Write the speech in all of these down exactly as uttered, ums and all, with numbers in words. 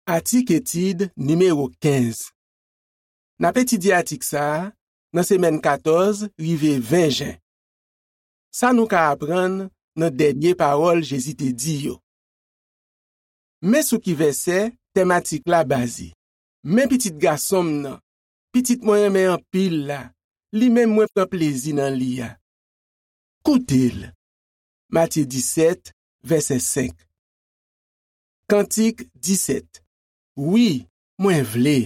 Atik etid nimewo kenz. N ap etidye atik sa a nan semèn katòz rive ven jen. Sa nou ka aprann nan dènye pawòl Jezi te di yo. Men sou ki vèsè tèm atik la baze. Men pitit gason m nan, pitit mwen renmen anpil la, li menm mwen pran plezi nan li a. Koute l. Matye disèt, vèsè senk. Kantik disèt. Wi, mwen vle.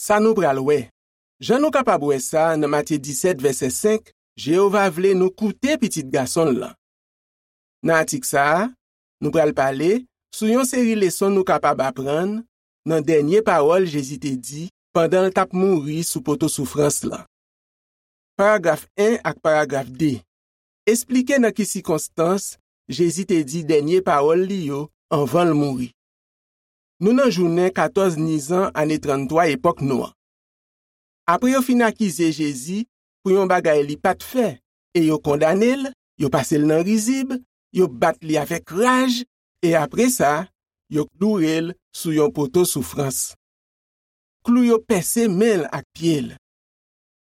Sa nou pral wè. Jan nou kapab wè sa nan Matye disèt, vèsè senk, Jewova vle nou koute pitit gason l lan. Nan atik sa a, nou pral pale sou yon seri leson nou kapab aprann nan dènye pawòl Jezi te di pandan l t ap mouri sou poto soufrans lan. Paragraf en ak paragraf de esplike nan ki sikonstans Jezi te di dènye pawòl li yo anvan l mouri. Nou nan jounen katòz Nizan ane tranntwa epòk nou an. Apre yo fin akize Jezi pou yon bagay li pa t fè, e yo kondane l, yo pase l nan rizib, yo bat li avèk raj, e apre sa, yo kloure l sou yon poto soufrans. Klou yo pèse men l ak pye l.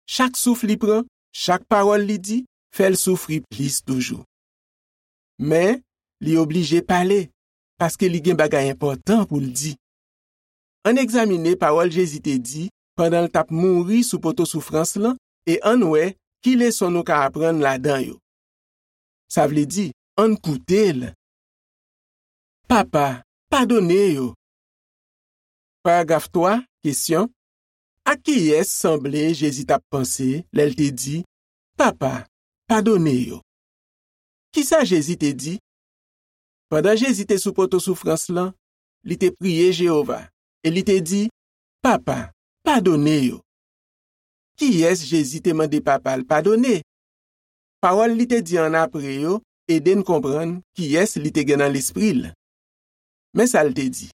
Chak souf li pran, chak pawòl li di, fè l soufri plis toujou. Men, li oblije pale, paske li gen bagay enpòtan pou l di. Ann egzamine pawòl Jezi te di pandan l t ap mouri sou poto soufrans lan e ann wè ki leson nou ka aprann ladan yo. Sa vle di, ann koute l. Papa, padone yo. Paragraf twa, kesyon. A kiyès sanble Jezi t ap panse lè l te di, Papa, padone yo? Ki sa Jezi te di? Pandan Jezi te sou poto soufrans lan, li te priye Jewova e li te di, Papa, padone yo. Kiyès Jezi te mande Papa l padone? Pawòl li te di annapre yo ede n konprann kiyès li te gen nan lespri l. Men sa l te di,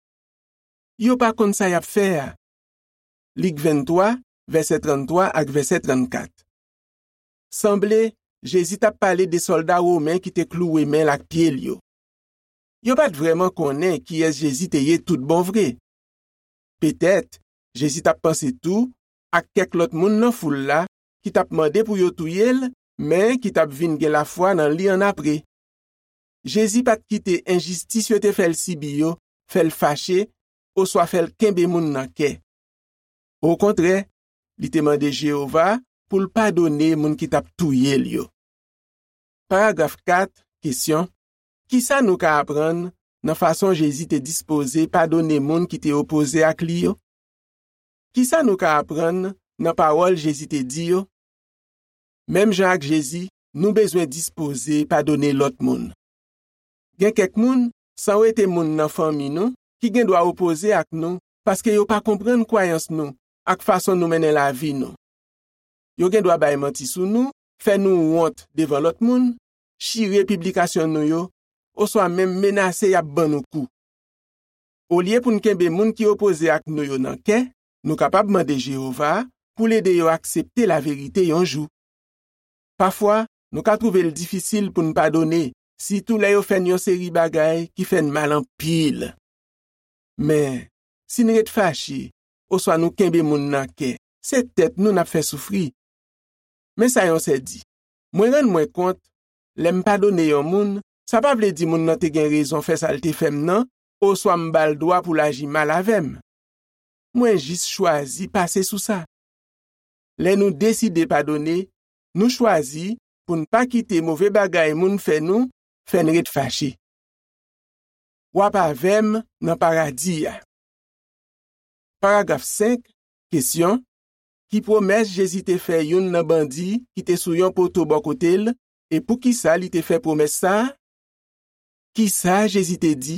Yo pa konn sa y ap fè a. Lik venntwa, vèsè tranntwa ak vèsè trannkat. Sanble, Jezi t ap pale de sòlda women ki te klouwe men l ak pye l yo. Yo pa t vrèman konnen kiyès Jezi te ye toutbonvre. Petèt, Jezi t ap panse tou ak kèk lòt moun nan foul la ki t ap mande pou yo touye l, men ki t ap vin gen lafwa nan li annapre. Jezi pa t kite enjistis yo te fè l sibi yo fè l fache oswa fè l kenbe moun nan kè. Okontrè, li te mande Jewova pou l padone moun ki t ap touye l yo. Paragraf kat, kesyon. Ki sa nou ka aprann nan fason Jezi te dispoze padone moun ki te opoze ak li yo? Ki sa nou ka aprann nan pawòl Jezi te di yo? Menm jan ak Jezi, nou bezwen dispoze padone lòt moun. Gen kèk moun, san wete moun nan fanmi nou, ki gen dwa opoze ak nou paske yo pa konprann kwayans nou ak fason nou mennen lavi nou. Yo gen dwa bay manti sou nou, fè nou wont devan lòt moun, chire piblikasyon nou yo, oswa menm menase y ap ban nou kou. Olye pou n kenbe moun ki opoze ak nou yo nan kè, nou kapab mande Jewova pou l ede yo aksepte laverite yon jou. Pafwa, nou ka twouve l difisil pou n padone, sitou lè yo fè n yon seri bagay ki fè n mal anpil. Men, si n ret fache, oswa nou kenbe moun nan kè, se tèt nou n ap fè soufri. Men sa yon sè di, Mwen rann mwen kont, lè m padone yon moun, sa pa vle di moun nan te gen rezon fè sa l te fè m nan, oswa m ba l dwa pou l aji mal avè m. Mwen jis chwazi pase sou sa. Lè nou deside padone, nou chwazi pou n pa kite move bagay moun fè nou fè n ret fache. W ap avè m nan paradi a. Paragraf senk, kesyon. Ki pwomès Jezi te fè youn nan bandi ki te sou yon poto bò kote l, e poukisa li te fè pwomès sa a? Ki sa Jezi te di?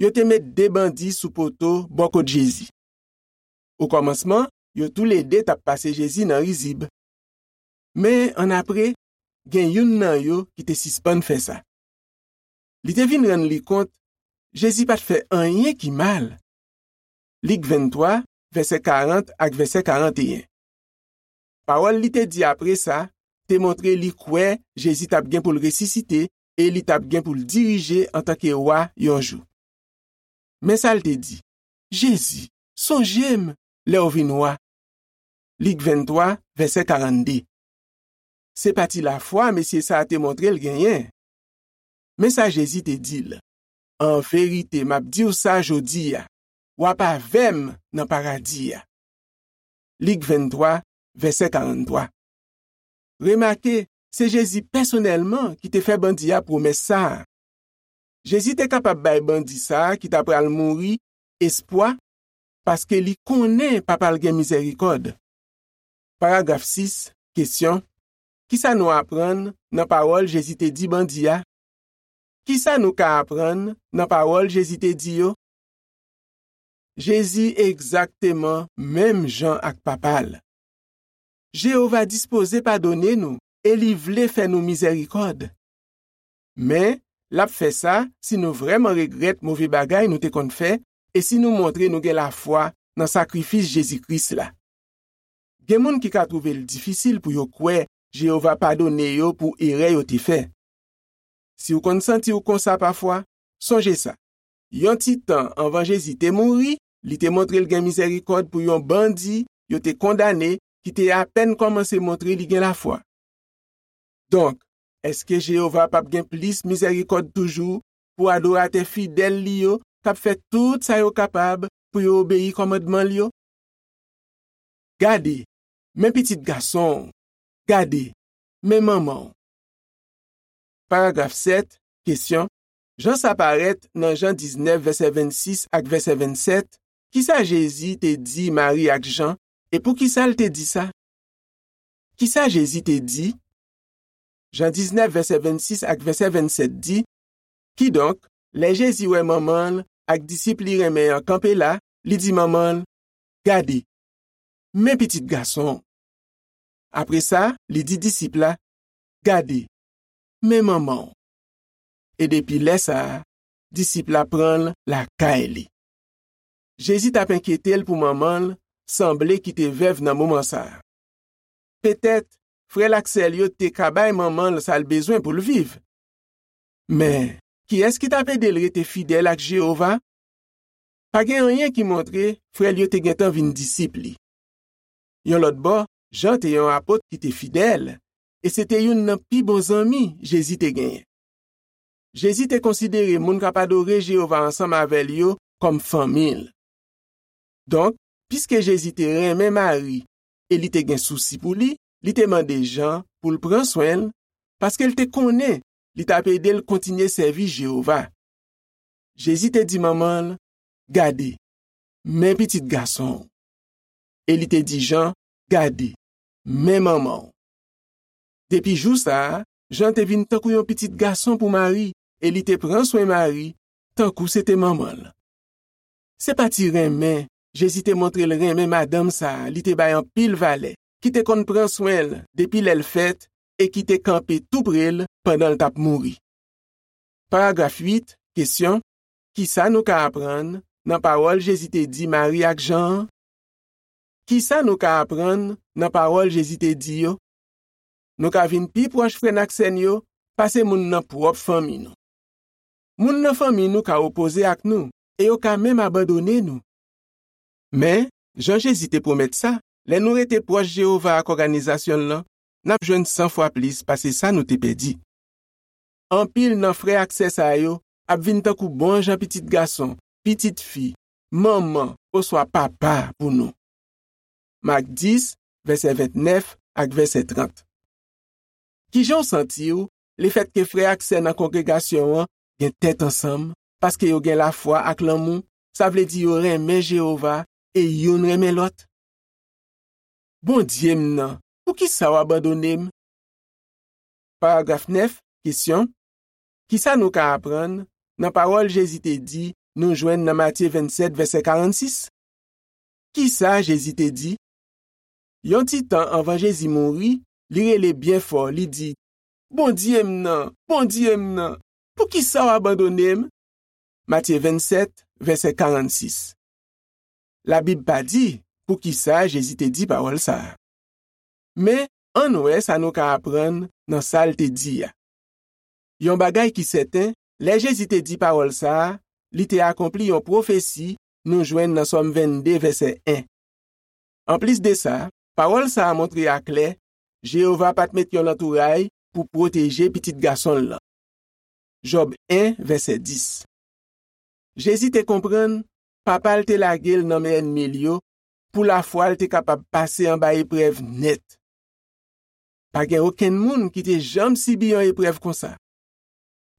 Yo te met de bandi sou poto bò kot Jezi. Okòmansman, yo toulede t ap pase Jezi nan rizib. Men annapre, gen youn nan yo ki te sispann fè sa. Li te vin rann li kont Jezi pa t fè anyen ki mal. Lik venntwa, vèsè karant ak vèsè karanteyen. Pawòl li te di apre sa te montre li kwè Jezi t ap gen pou l resisite e li t ap gen pou l dirije antanke wa yon jou. Men sa l te di: Jezi, sonje m lè w vin wa. Lik venntwa, vèsè karannde. Se pa ti lafwa mesye sa a te montre l genyen. Men sa Jezi te di l: An verite, m ap di w sa jodi a, w ap avè m nan paradi a. Lik venntwa, vèsè karanntwa. Remake, se Jezi pèsonèlman ki te fè bandi a pwomès sa a. Jezi te kapab bay bandi sa a ki ta pral mouri espwa, paske li konnen Papa l gen mizèrikòd. Paragraf sis, kesyon: Ki sa nou aprann nan pawòl Jezi te di bandi a? Ki sa nou ka aprann nan pawòl Jezi te di yo? Jezi egzakteman menm jan ak Papa l. Jewova dispoze padone nou e li vle fè nou mizèrikòd. Men, l ap fè sa si nou vrèman regrèt move bagay nou te konn fè e si nou montre nou gen lafwa nan sakrifis Jezi Kris la. Gen moun ki ka twouve l difisil pou yo kwè Jewova padone yo pou erè yo te fè. Si w konn santi w konsa pafwa, sonje sa: yon ti tan anvan Jezi te mouri, li te montre l gen mizèrikòd pou yon bandi yo te kondane ki te apèn kòmanse montre li gen lafwa. Donk, èske Jewova p ap gen plis mizèrikòd toujou pou adoratè fidèl li yo k ap fè tout sa yo kapab pou yo obeyi kòmandman l yo? Gade, men pitit gason w, gade, men manman w. Paragraf sèt, kesyon: Jan sa parèt nan Jan diznèf, vèsè vennsis ak vèsè vennsèt, ki sa Jezi te di Mari ak Jan, e poukisa l te di sa? Ki sa Jezi te di? Jan diznèf, vèsè vennsis ak vèsè vennsèt di: Kidonk, lè Jezi wè manman l ak disip li renmen an kanpe la, li di manman l: Gade, men pitit gason w. Apre sa, li di disip la: Gade, men manman w. E depi lè sa a, disip la pran l lakay li. Jezi t ap enkyete l pou manman l sanble ki te vèv nan moman sa a. Petèt, frè l ak sè l yo te ka bay manman l sa l bezwen pou l viv. Men, kiyès ki t ap ede l rete fidèl ak Jewova? Pa gen anyen ki montre frè l yo te gentan vin disip li. Yon lòt bò, Jan te yon apot ki te fidèl, e se te youn nan pi bon zanmi Jezi te genyen. Jezi te konsidere moun k ap adore Jewova ansanm avè l yo kòm fanmi l. Donk, piske Jezi te renmen Mari e li te gen sousi pou li, li te mande Jan pou l pran swen l, paske l te konnen li t ap ede l kontinye sèvi Jewova. Jezi te di manman l: Gade, men pitit gason w. E li te di Jan: Gade, men manman w. Depi jou sa a, Jan te vin tankou yon pitit gason pou Mari, e li te pran swen Mari tankou se te manman l. Se pa ti renmen Jezi te montre l renmen madanm sa a li te bay anpil valè, ki te konn pran swen l depi lè l fèt e ki te kanpe toupre l pandan l t ap mouri. Paragraf uit, kesyon: Ki sa nou ka aprann nan pawòl Jezi te di Mari ak Jan an? Ki sa nou ka aprann nan pawòl Jezi te di yo? Nou ka vin pi pwòch frè n ak sè n yo pase moun nan pwòp fanmi nou. Moun nan fanmi nou ka opoze ak nou e yo ka menm abandone nou. Men, jan Jezi te pwomèt sa, lè nou rete pwòch Jewova ak òganizasyon l lan, n ap jwenn san fwa plis pase sa nou te pèdi. Anpil nan frè ak sè sa yo ap vin tankou bon jan pitit gason, pitit fi, manman, oswa papa pou nou. Mak dis, vèsè ventnèf ak vèsè trant. Ki jan w santi w lefètke frè ak sè nan kongregasyon an gen tèt ansanm paske yo gen lafwa ak lanmou, sa vle di yo renmen Jewova e youn renmen lòt? Bondye m nan, poukisa w abandone m? Paragraf nèf, kesyon: Ki sa nou ka aprann nan pawòl Jezi te di nou jwenn nan Matye vennsèt, vèsè karannsis? Ki sa Jezi te di? Yon ti tan anvan Jezi mouri, li rele byen fò, li di: Bondye m nan, Bondye m nan, poukisa w abandone m? Matye vennsèt, vèsè karannsis. Labib pa di poukisa Jezi te di pawòl sa a. Men, ann wè sa nou ka aprann nan sa l te di a. Yon bagay ki sèten, lè Jezi te di pawòl sa a, li te akonpli yon pwofesi nou jwenn nan Sòm vennde, vèsè en. Anplis de sa, pawòl sa a montre aklè, Jewova pa t met yon lantouray pou pwoteje Pitit Gason l lan. Jòb en, vèsè dis. Jezi te konprann Papa l te lage l nan men ènmi l yo pou lafwa l te kapab pase anba eprèv nèt. Pa gen okenn moun ki te janm sibi yon eprèv konsa.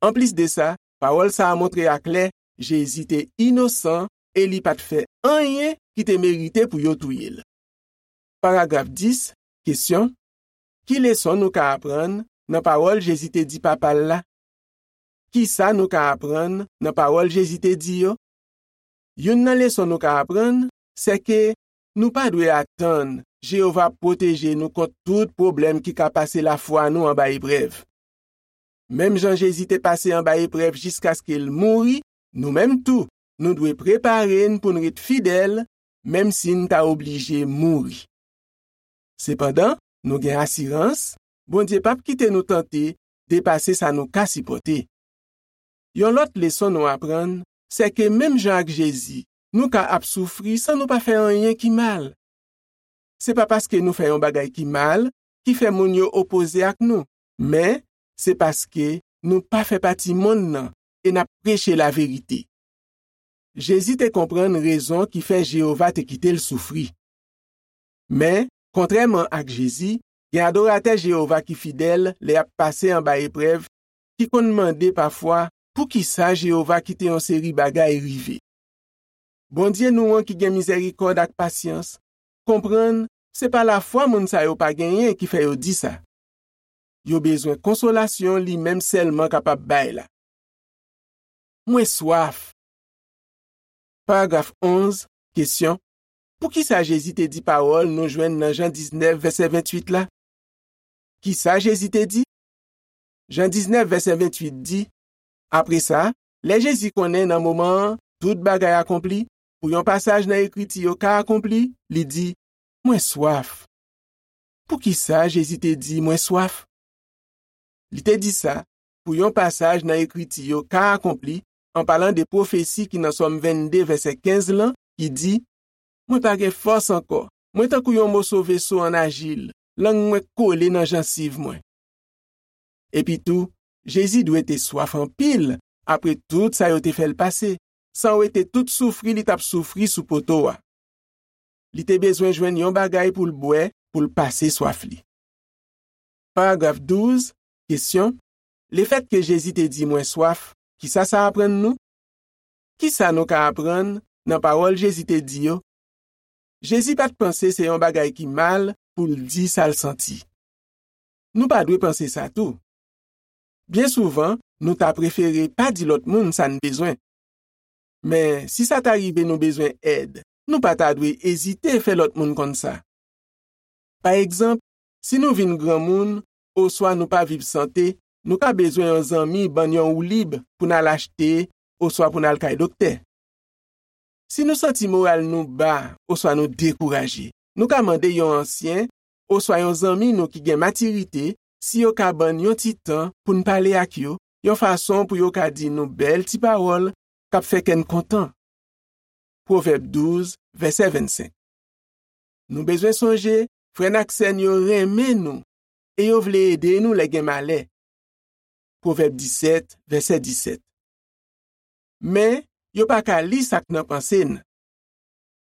Anplis de sa, pawòl sa a montre aklè Jezi te inosan e li pa t fè anyen ki te merite pou yo touye l. Paragraf dis, kesyon, ki leson nou ka aprann nan pawòl Jezi te di Papa l la? Ki sa nou ka aprann nan pawòl Jezi te di yo? Youn nan leson nou ka aprann, se ke nou pa dwe atann Jewova pwoteje nou kont tout pwoblèm ki ka pase lafwa nou anba eprèv. Menm jan Jezi te pase anba eprèv jiskaske l mouri, nou menm tou, nou dwe prepare n pou n ret fidèl, menm si n ta oblije mouri. Sepandan, nou gen asirans, Bondye p ap kite nou tante depase sa nou ka sipòte. Yon lòt leson nou aprann, se ke menm jan ak Jezi, nou ka ap soufri san nou pa fè anyen ki mal. Se pa paske nou fè yon bagay ki mal ki fè moun yo opoze ak nou, men se paske nou pa fè pati monn nan e n ap preche laverite. Jezi te konprann rezon ki fè Jewova te kite l soufri. Men, kontrèman ak Jezi, gen adoratè Jewova ki fidèl lè y ap pase anba eprèv, ki konn mande pafwa poukisa Jewova kite yon seri bagay rive. Bondye nou an ki gen mizèrikòd ak pasyans konprann se pa lafwa moun sa yo pa genyen ki fè yo di sa. Yo bezwen konsolasyon li menm sèlman kapab bay la. Mwen swaf. Paragraf onz, kesyon, poukisa Jezi te di pawòl nou jwenn nan Jan diznèf, vèsè venntuit la? Ki sa Jezi te di? Jan diznèf, vèsè venntuit di, apre sa, lè Jezi konnen nan moman an tout bagay akonpli, pou yon pasaj nan Ekriti yo ka akonpli, li di, mwen swaf. Poukisa Jezi te di, mwen swaf? Li te di sa pou yon pasaj nan Ekriti yo ka akonpli, an palan de pwofesi ki nan Sòm vennde, vèsè kenz lan, ki di, mwen pa gen fòs ankò, mwen tankou yon moso veso an ajil, lang mwen kole nan jansiv mwen. Epitou, Jezi dwe te swaf anpil apre tout sa yo te fè l pase, san wete tout soufri li t ap soufri sou poto a. Li te bezwen jwenn yon bagay pou l bwè pou l pase swaf li. Paragraf douz, kesyon, lefètke Jezi te di mwen swaf, kisa sa aprann nou? Kisa nou ka aprann nan pawòl Jezi te di yo? Jezi pa t panse se yon bagay ki mal pou l di sa l santi. Nou pa dwe panse sa tou. Byen souvan, nou ta prefere pa di lòt moun sa n bezwen. Men, si sa ta rive nou bezwen èd, nou pa ta dwe ezite fè lòt moun konn sa. Pa egzanp, si nou vin granmoun, oswa nou pa viv sante, nou ka bezwen yon zanmi ban n yon woulib pou n al achte, oswa pou n al kay doktè. Si nou santi moral nou ba, oswa nou dekouraje, nou ka mande yon ansyen, oswa yon zanmi nou ki gen matirite, si yo ka ban n yon ti tan pou n pale ak yo, yon fason pou yo ka di nou bèl ti pawòl k ap fè kè n kontan. Pwovèb douz, vèsè vennsenk. Nou bezwen sonje, frè n ak sè n yo renmen nou e yo vle ede nou lè gen malè. Pwovèb disèt, vèsè disèt. Men, yo pa ka li sa k nan panse n.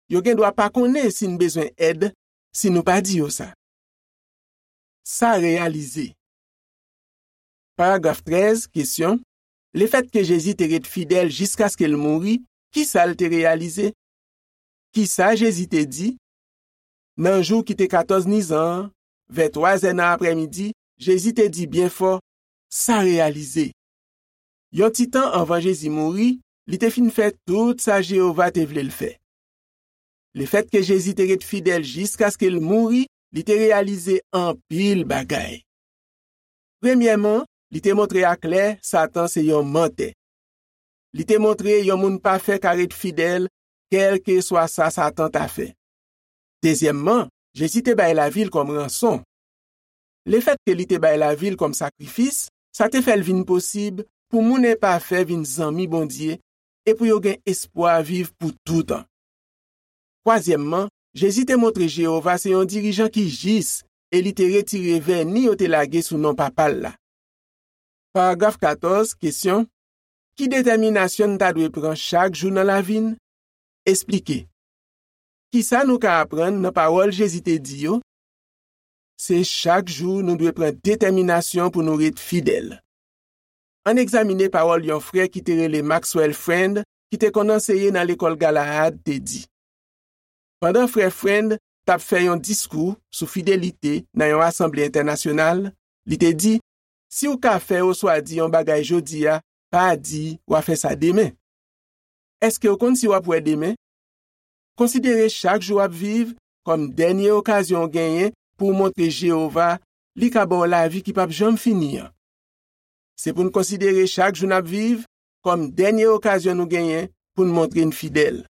Yo gen dwa pa konnen si n bezwen èd si nou pa di yo sa. Sa reyalize. Paragraf trèz, kesyon, lefètke Jezi te ret fidèl jiskaske l mouri, kisa l te reyalize? Kisa Jezi te di? Nan jou ki te katòz nizan an, vè twazè nan aprèmidi, Jezi te di byen fò, sa reyalize. Yon ti tan anvan Jezi mouri, li te fin fè tout sa Jewova te vle l fè. Lefètke Jezi te ret fidèl jiskaske l mouri, li te reyalize anpil bagay. Premyèman, li te montre aklè Satan se yon mantè. Li te montre yon moun pafè ka ret fidèl, kèlkeswa sa Satan ta fè. Dezyèmman, Jezi te bay lavi l kòm ranson. Lefètke li te bay lavi l kòm sakrifis, sa te fè l vin posib pou moun enpafè vin zanmi Bondye, e pou yo gen espwa viv pou toutan. Twazyèmman, Jezi te montre Jewova se yon dirijan ki jis e li te retire vèni yo te lage sou non Papa l la. Paragraf katòz, kesyon: Ki detèminasyon n ta dwe pran chak jou nan lavi n? Esplike. Ki sa nou ka aprann nan pawòl Jezi te di yo? Se chak jou nou dwe pran detèminasyon pou nou ret fidèl. Ann egzamine pawòl yon frè ki te rele Maxwell Friend, ki te konn anseye nan Lekòl Galaad, te di. Pandan frè Friend t ap fè yon diskou sou fidelite nan yon asanble entènasyonal, li te di: Si w ka fè oswa di yon bagay jodi a, pa di w a fè sa demen. Èske w konn si w ap wè demen? Konsidere chak jou w ap viv kòm dènye okazyon w genyen pou w montre Jewova li ka ba w lavi ki p ap janm fini an. Se pou n konsidere chak jou n ap viv kòm dènye okazyon nou genyen pou n montre n fidèl.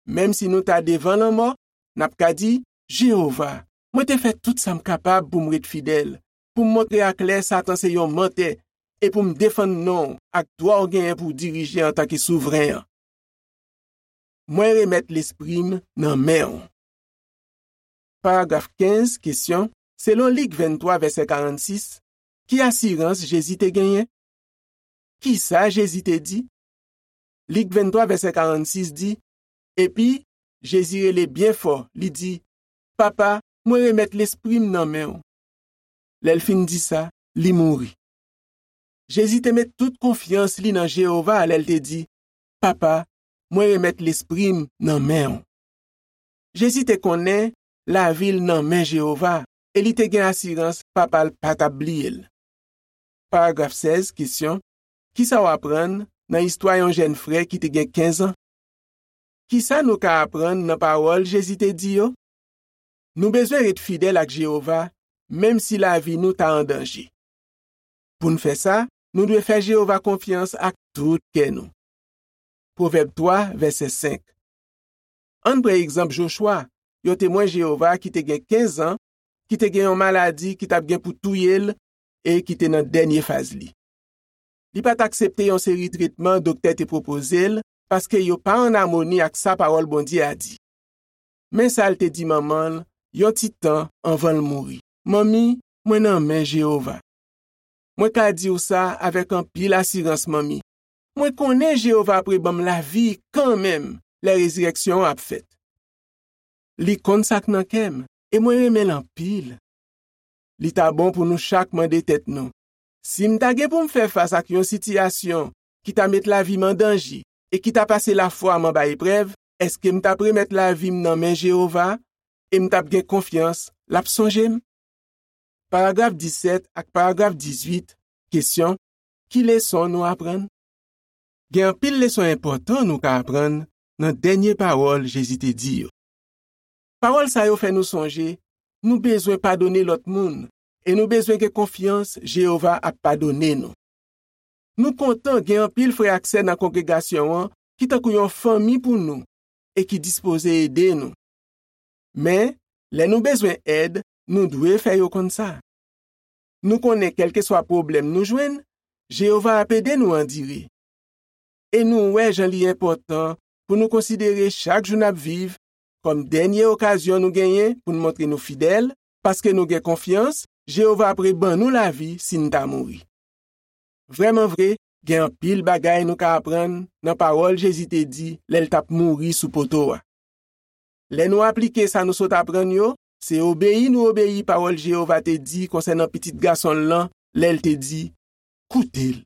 Menm si nou ta devan lanmò, n ap ka di: Jewova, mwen te fè tout sa m kapab pou m ret fidèl, pou m montre aklè Satan se yon mantè, e pou m defann non w ak dwa w genyen pou w dirije antanke souvren an. Mwen remèt lespri m nan men w. Paragraf kenz, kesyon: Selon Lik venntwa, vèsè karannsis, ki asirans Jezi te genyen? Ki sa Jezi te di? Lik venntwa, vèsè karannsis di: Epi, Jezi rele byen fò, li di: Papa, mwen remèt lespri m nan men w. Lè l fin di sa, li mouri. Jezi te met tout konfyans li nan Jewova lè l te di: Papa, mwen remèt lespri m nan men w. Jezi te konnen lavi l nan men Jewova e li te gen asirans Papa l pa t ap bliye l. Paragraf sèz, kesyon: Ki sa w aprann nan istwa yon jèn frè ki te gen kenz an? Ki sa nou ka aprann nan pawòl Jezi te di yo? Nou bezwen ret fidèl ak Jewova, menm si lavi nou ta an danje. Pou n fè sa, nou dwe fè Jewova konfyans ak tout kè nou. Pwovèb twa, vèsè senk. Ann pran egzanp Jochwa, yon temwen Jewova ki te gen kenz an, ki te gen yon maladi ki t ap gen pou touye l e ki te nan dènye faz li. Li pa t aksepte yon seri tretman doktè te pwopoze l paske yo pa ann amoni ak sa Pawòl Bondye a di. Men sa l te di manman l yon ti tan anvan l mouri: Manmi, mwen nan men Jewova. Mwen ka di w sa avèk anpil asirans, Manmi. Mwen konnen Jewova apre ban m lavi kanmenm lè rezirèksyon an ap fèt. Li konn sa k nan kè m, e mwen renmen l anpil. Li ta bon pou nou chak mande tèt nou: si m ta gen pou m fè fas ak yon sitiyasyon ki ta met lavi m an danje e ki ta pase lafwa m anba eprèv, èske m t ap remèt lavi m nan men Jewova e m t ap gen konfyans l ap sonje m? Paragraf disèt ak paragraf dizuit, kesyon: Ki leson nou aprann? Gen anpil leson enpòtan nou ka aprann nan dènye pawòl Jezi te di yo. Pawòl sa yo fè nou sonje nou bezwen padone lòt moun e nou bezwen gen konfyans Jewova ap padone nou. Nou kontan gen anpil frè ak sè nan kongregasyon an ki tankou yon fanmi pou nou e ki dispoze ede nou. Men, lè nou bezwen èd, nou dwe fè yo konn sa. Nou konnen kèlkeswa pwoblèm nou jwenn, Jewova ap ede nou andire. E nou wè jan li enpòtan pou nou konsidere chak jou n ap viv kòm dènye okazyon nou genyen pou n montre nou fidèl, paske nou gen konfyans Jewova ap reban nou lavi si n ta mouri. Vrèmanvre, gen anpil bagay nou ka aprann nan pawòl Jezi te di lè l t ap mouri sou poto a. Lè nou aplike sa nou sot aprann yo, se obeyi nou obeyi pawòl Jewova te di konsènan Pitit Gason l lan lè l te di: Koute l.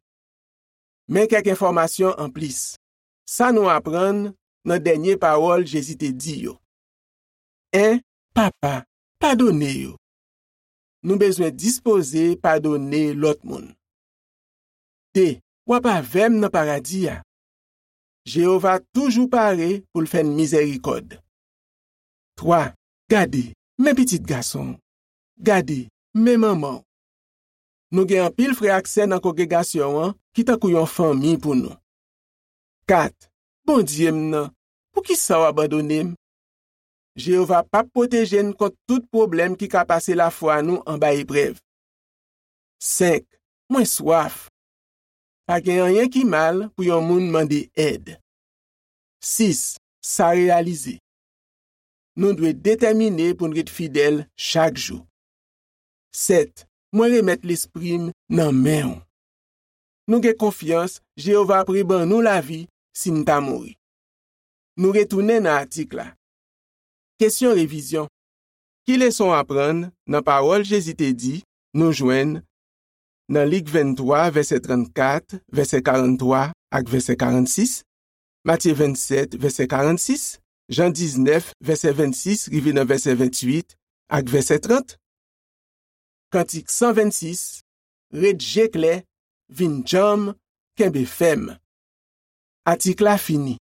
Men kèk enfòmasyon anplis. Sa nou aprann nan dènye pawòl Jezi te di yo. En, Papa, padone yo. Nou bezwen dispoze padone lòt moun. De, w ap avè m nan paradi a. Jewova toujou pare pou l fè n mizèrikòd. Twa, gade, men pitit gason w. Gade, men manman w. Nou gen anpil frè ak sè nan kongregasyon an ki tankou yon fanmi pou nou. Kat, Bondye m nan, poukisa w abandone m? Jewova p ap pwoteje n kont tout pwoblèm ki ka pase lafwa nou anba eprèv. Senk, mwen swaf. Pa gen anyen ki mal pou yon moun mande èd. Sis, sa reyalize. Nou dwe detèmine pou n ret fidèl chak jou. Sèt, mwen remèt lespri m nan men w. Nou gen konfyans Jewova ap reban nou lavi si n ta mouri. Nou retounen nan atik la. Kesyon revizyon. Ki leson w aprann nan pawòl Jezi te di nou jwenn nan Lik venntwa, vèsè trannkat, vèsè karanntwa ak vèsè karannsis, Matye vennsèt, vèsè karannsis, Jan diznèf, vèsè vennsis rive nan vèsè venntuit ak vèsè trant? Kantik san vennsis, ret je klè, vin djanm, kenbe fèm. Atik la fini.